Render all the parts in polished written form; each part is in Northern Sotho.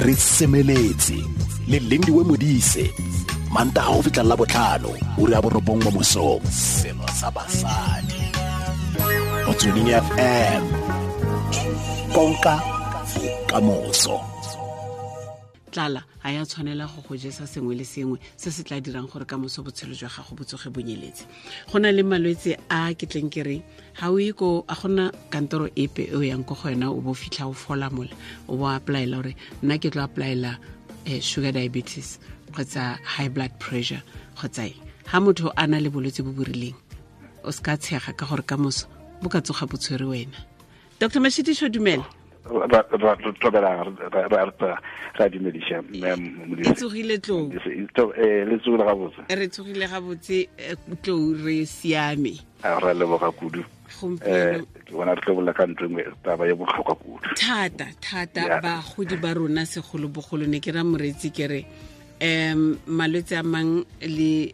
Re semeletse le Lindiwe Modise. Manta ga go fitlha la botlhano o re a borobong mo mosong. Selo sa basadi. Motsweding FM. Konka bokamoso. Tlala ga ya tshwanela go go jesa sengwe le sengwe se se tla dirang gore ka moso botshelo jwa gago bo tsoge bonyeletse. Go na le malwetse a ke tleng ke reng ga o ye ko, a gona kantoro epe e o yang ko go yona o bo fitlha o fola mola o bo applyela gore nna ke tlo applyela sugar diabetes kgotsa high blood pressure kgotsa eng. Ga motho a na le bolwetse bo bo rileng o se ka tshega ka gore ka moso bo ka tsoga bo tshwere wena. Dr. Mashitiso, dumela. Ra dumediša, mme Modise. E tsogile tlou. Le tsogile gabotse. Re tsogile gabotse, tlou re siame. A re leboga kudu. Gompieno. Ke bona re tlo bolela ka ntho e nngwe, taba e botlhokwa kudu. Thata, thata, bagodi ba rona segolobogolo ne ke ra moreetsi ke re malwetse a mang le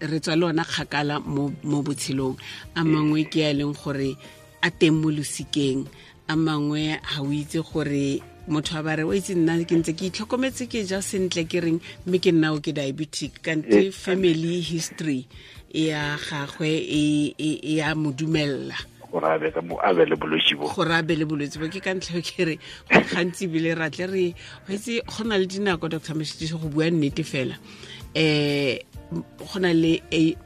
re tswa le ona kgakala mo botshelong. A mangwe ke a e leng gore a teng mo losikeng, a mangwe ga o itse gore motho a ba re o itse nna ke ntse ke itlhokometse ke ja sentle ke reng mme ke nna o ke diabetic, kante family history ya gagwe e ya mo dumella gore a be ka mo, a be le bolwetse bo. Gore a be le bolwetse bo, ke ka ntlha eo ke re go gantsi ebile ra tle re, wa itse go na le dinako, Doctor Mashitiso, go bua nnete fela, go na le age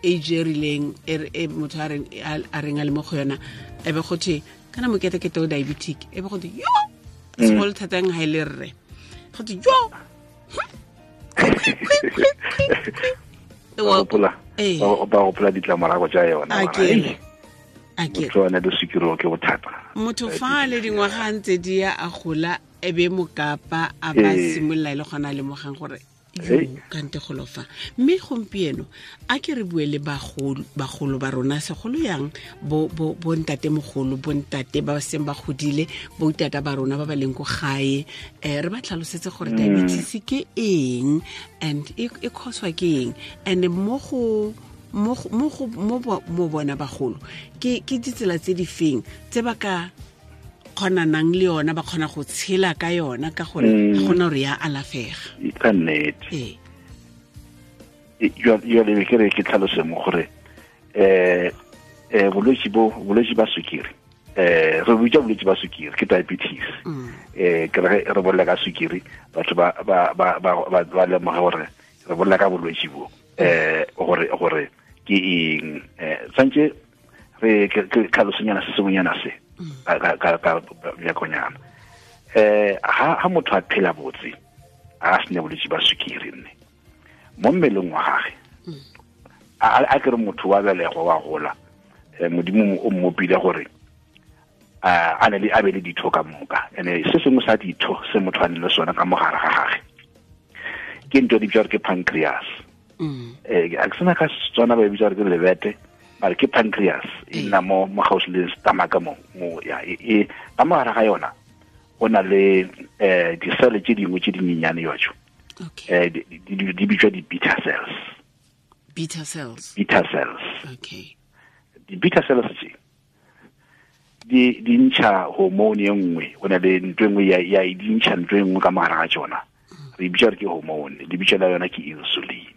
e rileng e motho a reng a le mo go yona, e be go thwe kana moketekete o diabetic, e be go thwe yo segolo thatang ha e le rre, go thwe yo. Ba gopola ditlamorago tša yona. A ke a ke Motho a na le sukiri ke bothata. Motho fa le dingwaga a ntse di ya a gola, e be mokapa a ba simolola e le gona a lemogang gore kante golo fa. Mme gompieno a ke re bue le bagolo ba rona, segolo yang bo ntatemogolo, bo ntate ba seng ba godile, bo tata ba rona ba ba leng ko gae, re ba tlhalosetse gore diabetes ke eng and e cause-wa ke eng, and mo go mo go, mo go, mo bo, mo bona bagolo ke ditsela tse di feng tse ba ka kgonanang le yona, ba kgona go tshela ka yona, ka gore ga gona gore ya alafega. Ka nnete. Jwale ke re ke tlhalose mo gore, bolwetse bo, bolwetse ba sukiri, re bitsa bolwetse ba sukiri ke diabetes. Ke re re bolela ka sukiri, batho ba lemoge gore re bolela ka bolwetse bo, gore ke eng. Tshwanetse re ke tlhalosonyana se sengwenyana se ka bjakonyana. Ha motho a phela botse, a sene bolwetse ba sukiri nne mo mmeleng wa gagwe, a ke re motho wa belegwa wa gola, Modimo o mmopile gore a ne le a be le ditho ka moka, ene se sengwe sa ditho se motho a neng le sona ka mogare ga gagwe ke ntho e di bitswa gore ke pancreas. A ke sena ka Setswana ba e bitsa gore ke lebete, mare ke pancreas, e nna mo gaufi le stomach mo, mo, ya, e, e, ka mogare ga yona go na le di-cell tse dingwe tse dinyenyane jwa. Di bitswa di-beta cells. Beta cells. Beta cells. Di-beta cells tse di ntšha hormone e nngwe, go na le ntho e nngwe ya e di ntšha ntho e nngwe ka mogare ga tsona. Re bitsa gore ke hormone, di bitsa la yona ke insulin.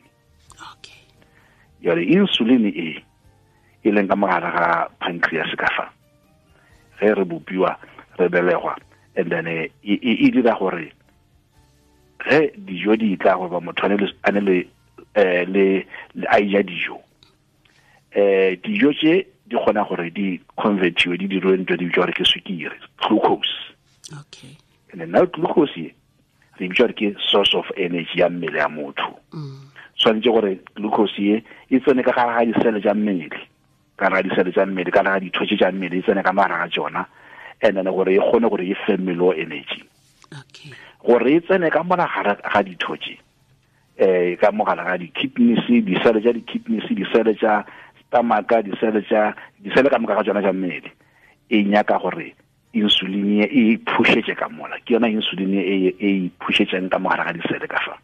Jwale insulin e e leng ka mogare ga pancreas ka fa, ge re bopiwa re belegwa, and then e dira gore ge dijo di tla gore ba motho a ne le, le, le a ja dijo, dijo tse di kgona gore di convertiwe, di dirwe ntho di bitswa gore ke sukiri, glucose. And then now glucose e re bitsa gore ke source of energy ya mmele ya motho. Tshwanetse gore glucose e e tsene ka gare ga disele tsa mmele, ka gare ga disele tsa mmele, ka gare ga ditho tse tsa mmele, e tsene ka mogare ga tsona, and then gore e kgone gore e fe mmele o energy. Gore e tsene ka mola gare ga ditho tse, ka mogare ga di-kidneys, disele tsa di-kidneys, disele tsa stomach, disele tsa, disele ka moka ga tsona tsa mmele, e nyaka gore insulin e e phušetše ka mola. Ke yona insulin e e phušetšeng ka mogare ga disele ka fa.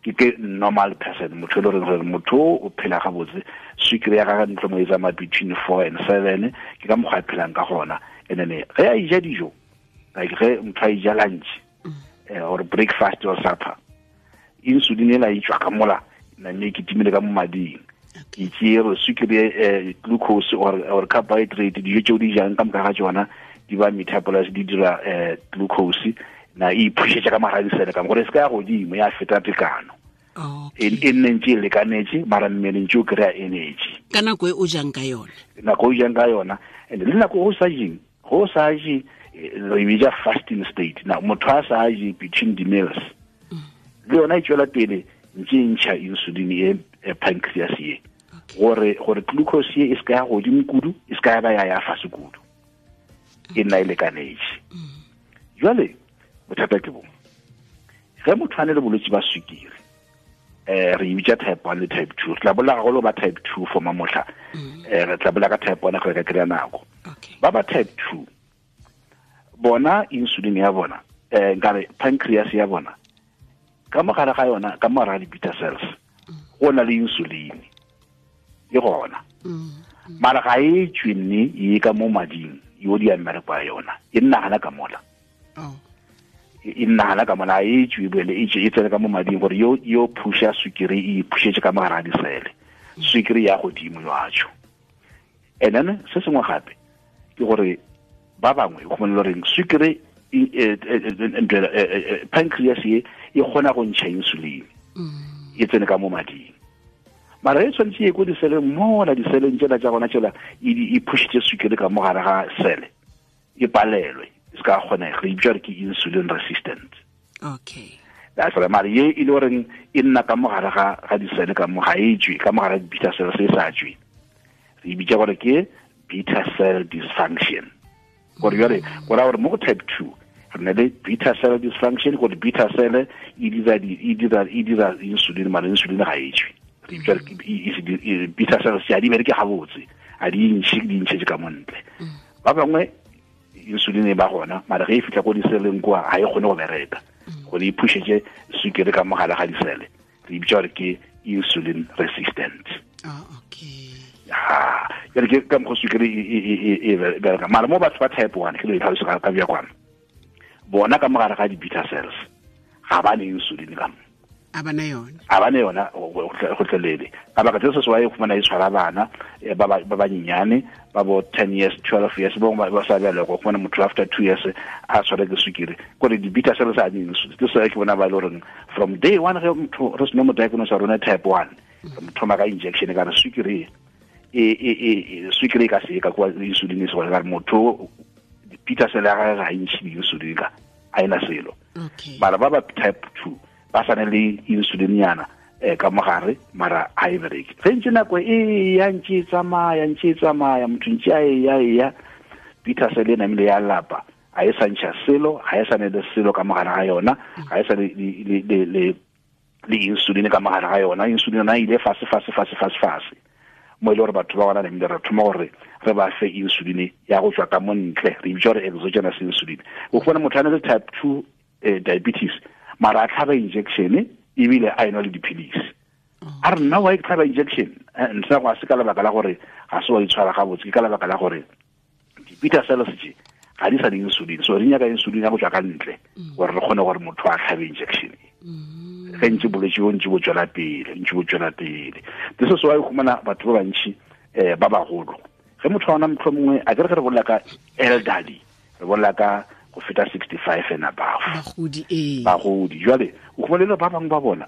Ke normal person, motho e le goreng gore motho o phela gabotse, sukiri ya gagwe ntlo mo e tsamaya between 4 and 7, ke ka mokgwa a phelang ka gona. And then ge a ija dijo, like ge motho a ija lunch, eh, or breakfast or supper insulin ela e tswa ka mola name e kitimile ka mo mading e tšere sukiri eh, glucose or, or carbohydrate dijo tšeo di jang ka moka ga tšona di ba metabolise di dira eh, glucose na e iphušetša ka mogara disele ka gore e se ka ya godimo ya feta tekano e, e nne ntse e lekanetse mara mmele ntse o kry-a energy ka nako e o jang ka yona nako e o jang ka yona and le nako o sa jeng go sa je eh, re bitsa fasting state na motho a sa je between the meals mm. le yona e tswela pele ntse e ntšha insulin e, e pancreas ye gore gore glucose ye e se ka ya godimo kudu e se ka ya ba ya ya fase kudu e nna e lekanetse mm. jale bothata ke bo ge motho a ne le bolwetse ba sukiri eh re bitsa type 1 le type 2 re tla bolela gagolo ba type 2 for mamotlha mm. eh re tla bolela ka type 1 go ka kry-a nako ba ba type 2 bona insulin ya bona eh nkare pancreas ya bona ka mogare ga yona ka mogare ga di-beta cells mm. go na le insulin e gona mm. mara ga e tswe nne e ka mo mading yo di ya mmereko ya yona e nna gana ka mola oh. e nna gana ka mola e tswe boele e tswe e tsene ka mo mading gore yo yo phusha sukiri e phušetše ka mogare ga disele sukiri ya godimo yo atsho and then se sengwe gape ke gore ba bangwe go le goreng sukiri e, e, e, pancreas ye e kgona go ntšha insulin mm. e tsene ka mo mading mara e tshwanetse ye ko diseleng mola diseleng tsela tsa gona tsela e phušitše sukiri ka mo gare ga sele e palelwe e se ka kgonega re bitsa gore ke insulin resistant okay that's right mare ye e le goreng e nna ka mogare ga ga disele ka mo ga e tswe ka mogare ga beta cell se sa tswe re bitsa gore ke beta cell dysfunction gore jale go raya gore mo go type 2 re na le beta cell dysfunction gore beta cell e dira e dira e dira insulin mare insulin ga e tswe re bitsa beta cell se a di bereke gabotse a di ntšhe di ntšhetse ka montle mm. ba bangwe insulin e ba gona mara ge e fitlha ko diseleng kwa ga e kgone go bereka mm. gore e phušetse sukiri ka mogala ga disele re e bitsa gore ke insulin resistant oh, okay. ha jale ke ka mokgwa sukiri e, e, e, e bereka mara mo batho ba type one ke lo e tlhalosa ka bja kwana bona ka mogare ga di-beta cells ga ba ne insulin ka mo a bana yona a bana yona go tlelele ka baka tse se se wa e khumana e tshwara bana eh, ba ba banyenyane ba bo 10 years 12 years bo ba sa bjale go khumana motho after 2 years a tshwara ke sukiri gore di beta cells a di insulin ke se ke bona ba le goreng from day one ge motho re seno mo diagnose rona type 1 re mo thoma ka injection ka re sukiri e e e sukiri e ka se ka kwa insulin e se gore ka re motho di-beta cell ya gagwe ga e ntšhe di-insulin ka a ena selo mara ba ba type 2 ba sane le insulin yana eh ka mogare mara a e bereke ge ntse nako e ya ntse e tsamaya ntse e tsamaya motho ntse a e ya e ya peter sele namile ya lapa a e sa ntšha selo ga e sa ne le selo ka mogare ga yona ga e sa le le le le insulin ka mogare ga yona insulin yona e ile fase fase fase fase fase mo e le gore batho ba gona namile re thoma gore re ba fe insulin ya go tswa ka mo ntle re bitsa gore exogenous insulin o fumana motho a ne le type 2 eh, diabetes mara a tlhaba injection ebile a enwa le dipilisi a re nna wa e tlhaba injection eh, ntle go a se ka lebaka la gore ga se wa itshwara gabotse ke ka lebaka la gore di-beta cells tše ga di sa le insulin so re nyaka insulin ya go tswa ka ntle mm. gore re kgone gore motho a tlhabe injection mm. ge ntse bolwetse bo ntse bo tswela pele ntse bo tswela pele this is why o humana batho ba bantši um ba bagolo ge motho wa ona motlho mongwe a kere ge re bolela ka elderly re bolela ka go feta 65 and above bagodi ee bagodi jwale o khumana le ba bangwe ba bona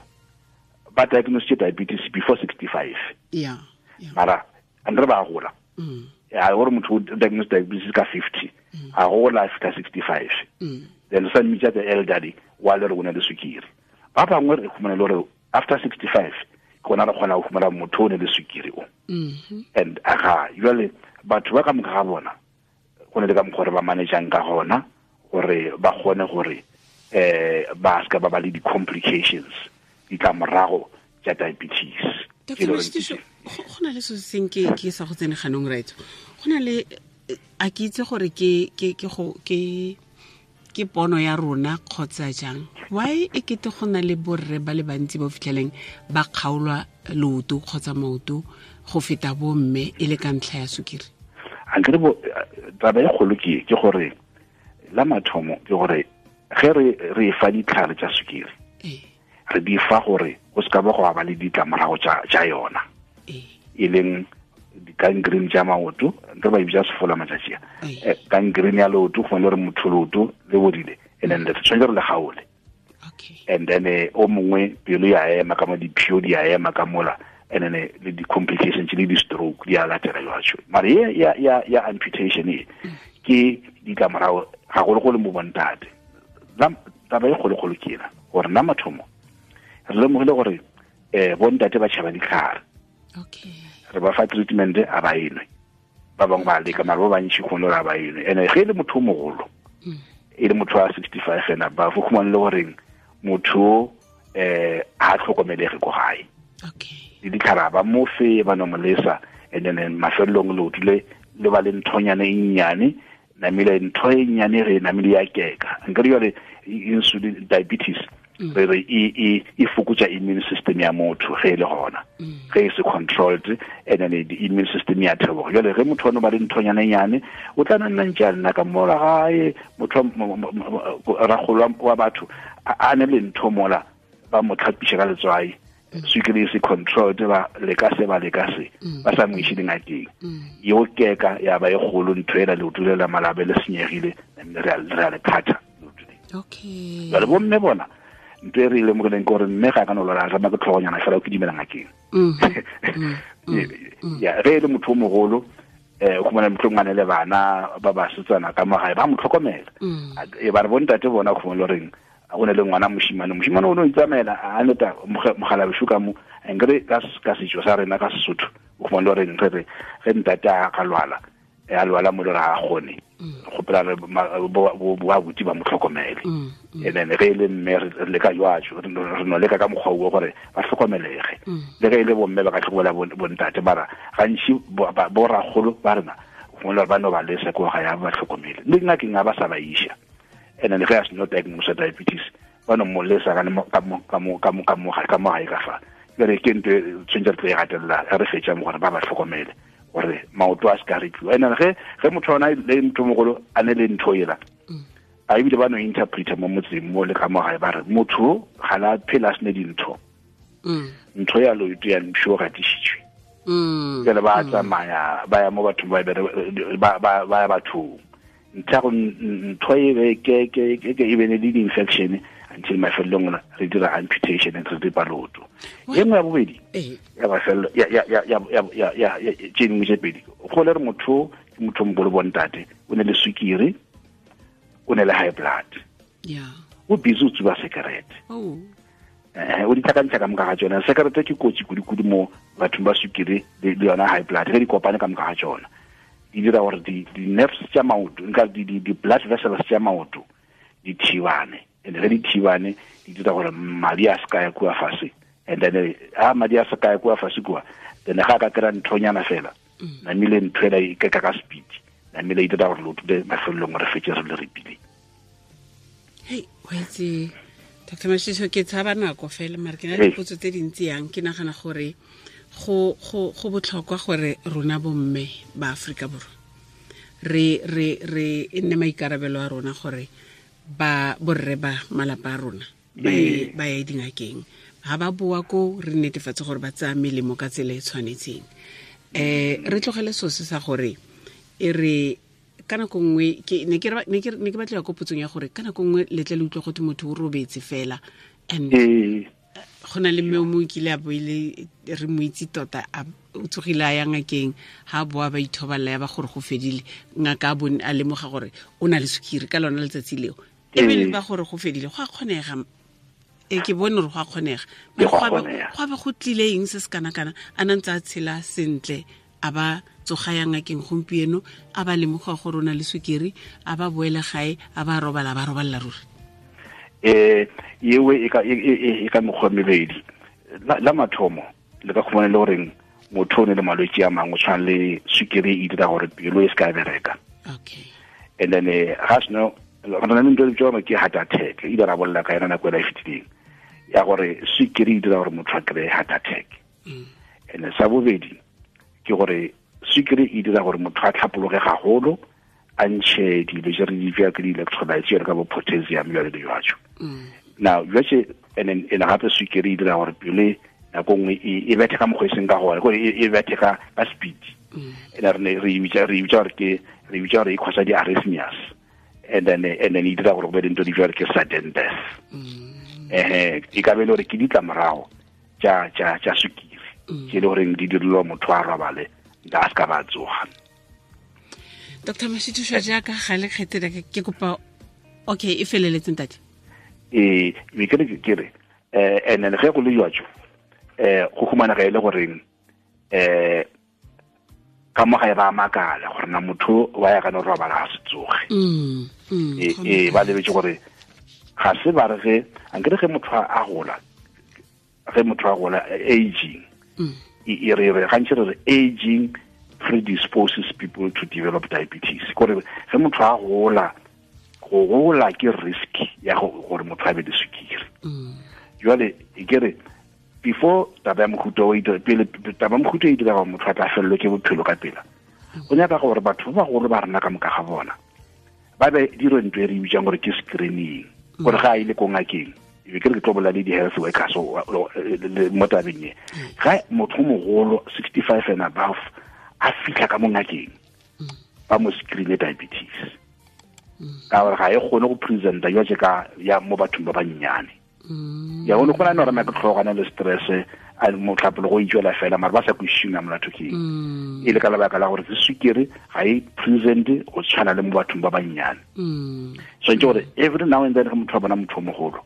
ba diagnosed diabetes before 65 yeah, yeah. mara and re ba gola mm. ya gore motho o diagnosed diabetes ka 50 mm. a gola a fita 65 mm. then sa mmitsa the elderly wa le re o na le sukiri ba bangwe re khumana le gore after 65 ke gona re kgona go fumana motho o ne le sukiri o mm-hmm. and aga jale batho ba ka moka ga bona go ne le ka mokgwa re ba manageang ka gona gore ba kgone gore eh ba ska ba ba le di-complications ditlamorago tša diabetes go na le se seng ke ke sa go tsene ganong right go na le a ke itse gore ke ke ke go ke ke pono ya rona kgotsa jang why e kete go na le borre ba le bantsi ba fitlheleng ba kgaolwa leoto kgotsa maoto go feta bomme e le ka ntlha ya sukiri ankere bo taba e kgolo ke ke gore la mathomo ke gore Ge re re fa ditlhare tša sukiri, re di fa gore go se ka ba go ba le ditlamorago tša yona, e leng di-gangrene tša maoto, re ba e bitša sefola matšatši a, gangrene ya leoto, go le gore motho leoto le bodile, and then re tshwanetse re le gaole. And then o mongwe pelo ya ema ka mo, diphio di ya ema ka mola, and then le di-complications le di-stroke di a latela jwatsho. Mara ye ya amputation e ke ditlamorago gagologolo mo bontate. Taba e kgolokgolo ke ena gore nna mathomo re lemogile gore bontate ba tšhaba ditlhare. Re ba fa treatment a ba enwe, ba bangwe ba leka, mara ba bantši kgone gore a ba enwe. And ge e le motho o mogolo, e le motho wa 65 and above, o khumane le goreng motho a tlhokomelege ko gae. Le ditlhare ba mo fe, ba no mo lesa, and then mafelelong leoto le le ba le nthonyane e nnyane, namile ntho e nnyane re namile ya keka. Nka re jwale insulin diabetes re re e fokotsa immune system ya motho ge e le gona, ge e se controlled, and then the immune system ya theoga. Jwale ge motho ono ba le nthonyane nyane, o tla nna ntse a nna ka mola gae, motho ragolo wa batho a ne le ntho mola, ba mo tlhapiša ka letswai, sukiri e se controlled, ba leka se, ba leka se, ba sa mo iše dingakeng, yeo keka ya ba e kgolo ntho ela, leoto le la malabe le senyegile, re a le phatha leoto le. Jwale bomme bona ntho e re e lemogileng ke gore mme ga a ka no lwala, rema ke tlhogonyana fela o ke dumela ngakeng. Ya, ge e le motho o mogolo, o khumana motho ngwane le bana ba basetsana ka mo gae ba mo tlhokomela. E ba re bontate bona o khumana reng o ne le ngwana moshimane, moshimane o ne o itsamaela a neta mogala ka mo, nkere ka setso sa rena ka Sesotho o khumana reng re re ge ntate a ka lwala, a lwala mo le re a gone gopela re bo abuti ba mo tlhokomele. And then ge e le mme re leka jwatso, re no leka ka mokgwa o gore ba tlhokomelege. Le ge e le bomme ba ka tlhokomela bontate, mara gantši bo ragolo ba rena gongwe ba no ba lesa ko ga ya ba tlhokomele, le ngakeng a ba sa ba iša. And then ge a seno diagnose diabetes, ba no mo lesa ka mo gae ka fa. Jwale ke ntho e tshwanetse re tlo e gatelela ge re fetša mo, gore ba ba tlhokomele gore maoto a se ka rekiwa. And then ge motho ona le motho mogolo a ne le ntho ela, a ebile ba no interpreta mo motseng mo le ka mo gae, ba re motho ga la phela a sene dintho, ntho ya loeto ya mpšho gatišitšwe. Jwale ba tsamaya ba ya mo bathong ba ba ya bathong, ntho ntho e be ke ke ke e bene le di-infection until mafelelong re dira amputation re ripa leoto. E nngwe ya bobedi ya mafelelo ya ya ya ya ya ya tše dingwe tše pedi, go le re motho ke motho mogolo bontate, o ne le sukiri, o ne le high blood, o busy o tsuba sekerete, o di tlhakantsha ka moka ga tsona. Sekerete ke kotsi kudu-kudu mo bathong ba sukiri le yona high blood, ge di kopane ka moka ga tsona di dira gore di-nerves tša maoto, nka di-blood vessels tša maoto di thibane, and ge di thibane di dira gore madi a se ka ya kua fase, and then a madi a se ka ya kua fase kua, then ga a ka kry-a nthonyana fela, namile ntho ela e keka ka speed, namile e dira gore leoto le mafelelong re fetse re le repile. Hei, wa itse Dr Mashiso, ke tshaba nako fela, mare ke na le dipotso tse dintsi yang. Ke nagana gore go botlhokwa gore rona bomme ba Aforika Borwa re re re e nne maikarabelo a rona gore ba borre ba malapa a rona ba ye dingakeng, ga ba boa ko re netefatse gore ba tsaya melemo ka tsela e tshwanetseng. Re tlogele sose sa gore e re ka nako nngwe ke ne ke ne ke batlela ko potsong ya gore ka nako nngwe letle le utlwa gote motho o robetse fela, and go na le mme o mongwe kile a boile re mo itse tota, o tsogile a ya ngakeng, ha boa ba ithobalela ya ba gore go fedile, ngaka a bone a lemoga gore o na le sukiri ka lona letsatsi leo, e be le ba gore go fedile. Go a kgonega, e ke bone gore go a kgonega, go be go tlile eng se se kana-kana, a na ntse a tshela sentle, a ba tsoga ya ngakeng gompieno, a ba lemoga gore o na le sukiri, a ba boele gae, a ba robala, ba robalela ruri. Ewe e ka mekgwa mebedi. La mathomo le ka khumana le goreng motho o ne le malwetse a mangwe, tshwana le sukiri e dira gore pelo e se ka bereka. And then ga seno re na le ntho e bitswang ke heart attack, e ile ra bolela ka yona nako e la e fetileng, ya gore sukiri e dira gore motho a kry-e heart attack. And sa bobedi ke gore sukiri e dira gore motho a tlhapologe gagolo, a ntšhe dilo tše re di bja ke di-electrolytes jalo ka bo potassium jalo le jwatšo mm. now jwatše and then and gape swikere e dira gore pelo nako nngwe e, e bethe ka mokgwa e seng ka gone kore e, e bethe ka ka speed mm. and re ne re bitsa re bitsa gore ke re bitsa gore e causa di-arrhythmias and then and then e dira gore go be le ntho di bjale ke sudden death mm. eh e ka be le gore ke ditlamorago tša tša tša sukiri mm. tše le goreng di dirilwa motho a robale nka a se ka ba tsoga dr mashithušwa jaaka ga le kgethele ke kopa okay e feleletseng tate ee be ke re ke re um and then ge go le jwatso um go humanega e le goreng um ka mo gae ba makala gore na motho wa ya kana robala ga se tsoge mm, mm, ee e, ba lebetse gore ga se ba re ge ankere ge motho a gola ge motho a gola aging mm. e, e re re gantši re re aging predisposes people to develop diabetes kore ge motho a gola go gola ke risk ya gore motho a be le sukiri jale e ke re before taba ya mohuta o pele taba ya mohuta e dira gore motho a tla felelwe ke bophelo ka pela go nyaka gore batho ba bagolo ba rena ka moka ga bona ba be dire ntho e re bitsang gore ke screening gore ga a ile ko ngakeng e be ke re ke tlo bolela le di-health workers mo tabeng e ga motho mogolo 65 and above a fitlha ka mo ngakeng ba mo screene diabetes ka gore ga e kgone go presenta jwa ka ya mo bathong ba bannyane mm. ya gone go na ne ke tlhogana le stress a motlhapolo go itswela fela mara ba sa kwešišeng ya molato ke mm. e le ka lebaka la gore ke sukiri ga e present go tshwana le mo bathong ba bannyane mm. swantse gore every now and then ge motho a bona motho o mogolo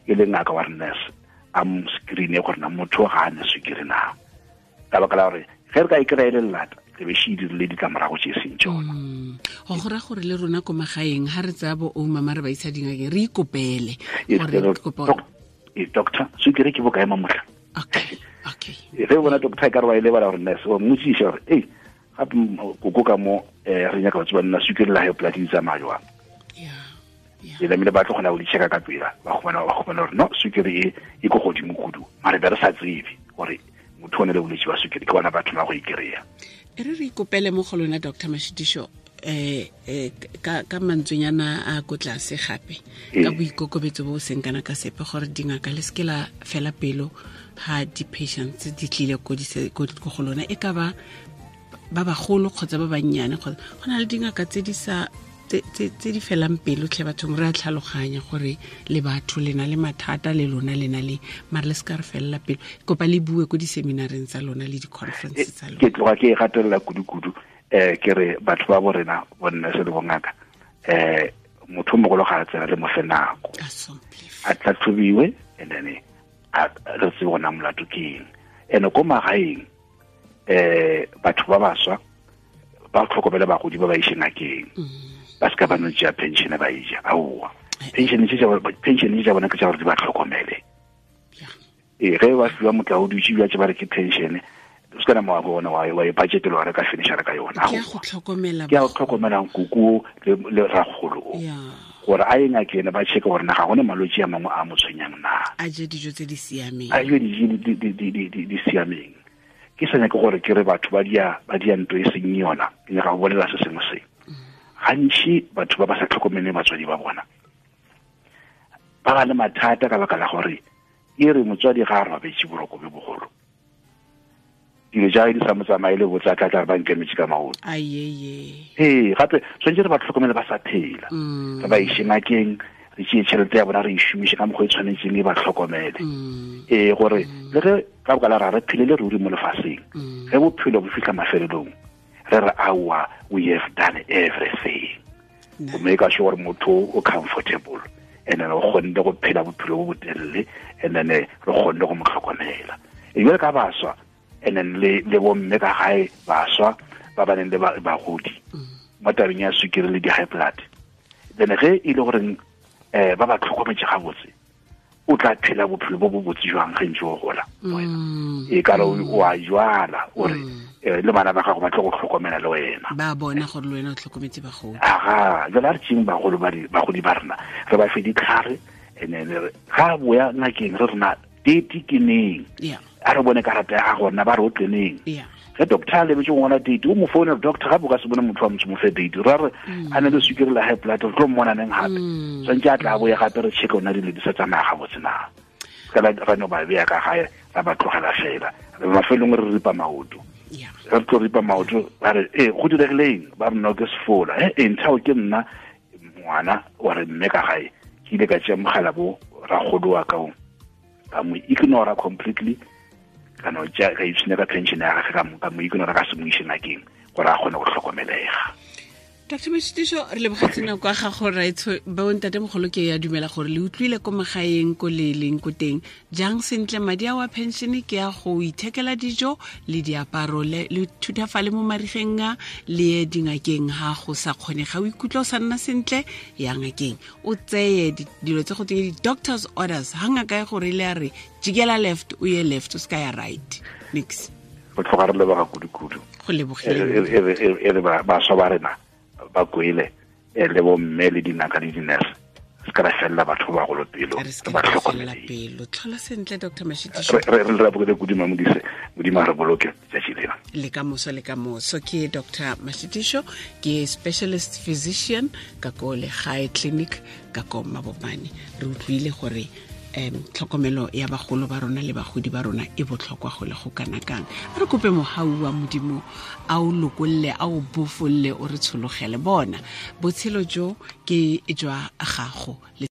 e le ngaka wa re nurse a mo screene gore na motho ga a ne sukiri na ka baka la gore ge re ka e kry-e le lelata re be še dirile ditlamorago tše seng tsona mm. go gora gore le rona ko magaeng ga re tsaya bo omama re ba isa dingakeng re ikopele e, doctor sukiri ke bokae mamotlha okay okay ge o bona doctor e ka re wa e lebala gore nurse o mmotsiše gore ei gape koko ka mo um re nyaka go tseba nna sukiri la high blood di tsamaya jwang e lamile ba tlo kgona go di checka ka pela ba kgona ba kgona gore no sukiri e e ko godimo kudu mare be re sa tsebe gore motho o ne le bolwetse ba sukiri ke bona batho ba go ikry-a e re re ikopele mo go lona dr mashitišo eh eh ka ka mantswenyana a ko tlase gape ka boikokobetso bo seng kana ka sepe gore dingaka le seke la fela pelo ha di-patients di tlile ko go lona e ka ba ba bagolo kgotsa ba bannyane kgotsa go na le dingaka tse di sa tse di felang pelo tlhe bathong re a tlhaloganya gore le batho le na le mathata le lona le na le mare le se ka re felela pelo kopa le bue ko di-seminareng tsa lona le di-conference eh, tsa lona ke tloga ke e gatelela kudu-kudu um ke re batho ba bo rena bonne se le bongaka um motho o mogolo ga a tsena le mo fe nako a tlhatlhobiwe and then re tsebe gona molato ke eng and ko magaeng eh batho ba baswa ba tlhokomele bagodi ba ba ishe ngakeng mm. ba se ka ba no tšea pension ba ija aowa eh. pension tše pension tša bona ke tša gore di ba tlhokomele ee ge ba fiwa motla o dutše bja tše ba re ke pension o se kana mowa bona wa wa e budget le wa re ka finisha ka yona ke go tlhokomela ke go tlhokomela nkuku le le ragolo o gore a ye ngakeng ba checke gore na ga gone malwetse a mangwe a mo tshwenyang na a je dijo tse di siameng a je dijo di siameng ke sa nyake gore ke re batho ba dia ba dia nto e seng yona ke nyaka go bolela se sengwe se gantši batho ba ba sa tlhokomeleng batswadi ba bona ba ba le mathata ka baka la gore e re motswadi ga a robetse boroko bjo bogolo dilo tša di sa mo tsamaye le botsa tla tla re ba nkemetse ka maoto ee gape tshwanetse re ba tlhokomele ba sa phela mm. re ba ise ngakeng re tšee tšhelete ya bona re e šomiše ka mokgwa e tshwanetseng e ba tlhokomele mm. ee gore mm. le ge ka boka la ra re phelele ruri mo lefaseng ge bophelo bo fitlha mafelelong re re aowa we have done everything go make sure gore motho o comfortable and then o kgonne go phela bophelo bo botelele and then re kgonne go mo tlhokomela e jale ka baswa and then le le bomme ka gae baswa ba ba neng le bagodi mo tabeng ya sukiri le di-high blood then ge e le goreng um ba ba tlhokometse gabotse o tla phela bophelo bo bo botse jwang ge ntse o gola mm. e kare o a jwala o re mm. eh, le bana ba gago ba tlo go tlhokomela le wena ba bona gore le wena o tlhokometse bagolo aga jale a re tšeng bagolo bagodi ba rena re ba fe ditlhare and then ga boya ngakeng re rena date ke neng a re bone karata ya gago rena ba re o tleneng ge Ge doctor a lebetse go ngwala date, o mo founela doctor gape o ka se bone motho wa motho mo fe date. Ra re a ne le sukiri la high blood, re tlo mmona neng gape. Tshwanetse a tla boye gape re check ona dilo di sa tsamaya gabotse na. Ka la ra no ba beya ka gae ra ba tlogela fela. Re mafelong re ripa maoto. Re tlo ripa maoto ba re eh go diregileng ba re no ke sefola. Eh eh nthao ke nna ngwana wa re mme ka gae. Ke ile ka tšea mogala bo ragolo wa ka o. Ka mo ignora completely. Ka no tša ka ipshina ka pension ya gagwe ka mo ka mo ignora ka se mo ise ngakeng gore a kgone go hlokomelega. Dr Mashitiso re lebogetse nako ya gago raetsho bontate mogolo ke ya dumela gore le utlwile ko magaeng ko le leng ko teng jang sentle madi a wa pension ke ya go ithekela dijo le diaparo le le thutafale mo marigeng a le ye dingakeng ha go sa kgone ga o ikutlwa o sa nna sentle ya ngakeng o tseye dilo tse go teng di-doctors orders ha ngaka e gore le a re jikela left o ye left o se ka ya right nix go tlhoga re leboga kudu-kudu go lebogile e re baswa ba rena ba kwele e le bomme le dingaka le dinurse se ka ra felela batho ba bagolo pelo re ba tlhokomele pelo tlhola sentle dr mashitiso re re rabogile kudu mamodise modimo a re boloke tsatsi lena le ka moso le ka moso ke dr mashitiso ke specialist physician ka ko legae clinic ka ko mabopane re utlwile gore um tlhokomelo ya bagolo ba rona le bagodi ba rona e botlhokwa go le go kana kang a re kope mogau wa modimo a o lokolle a o bofolle o re tshologele bona botshelo jo ke jwa gago.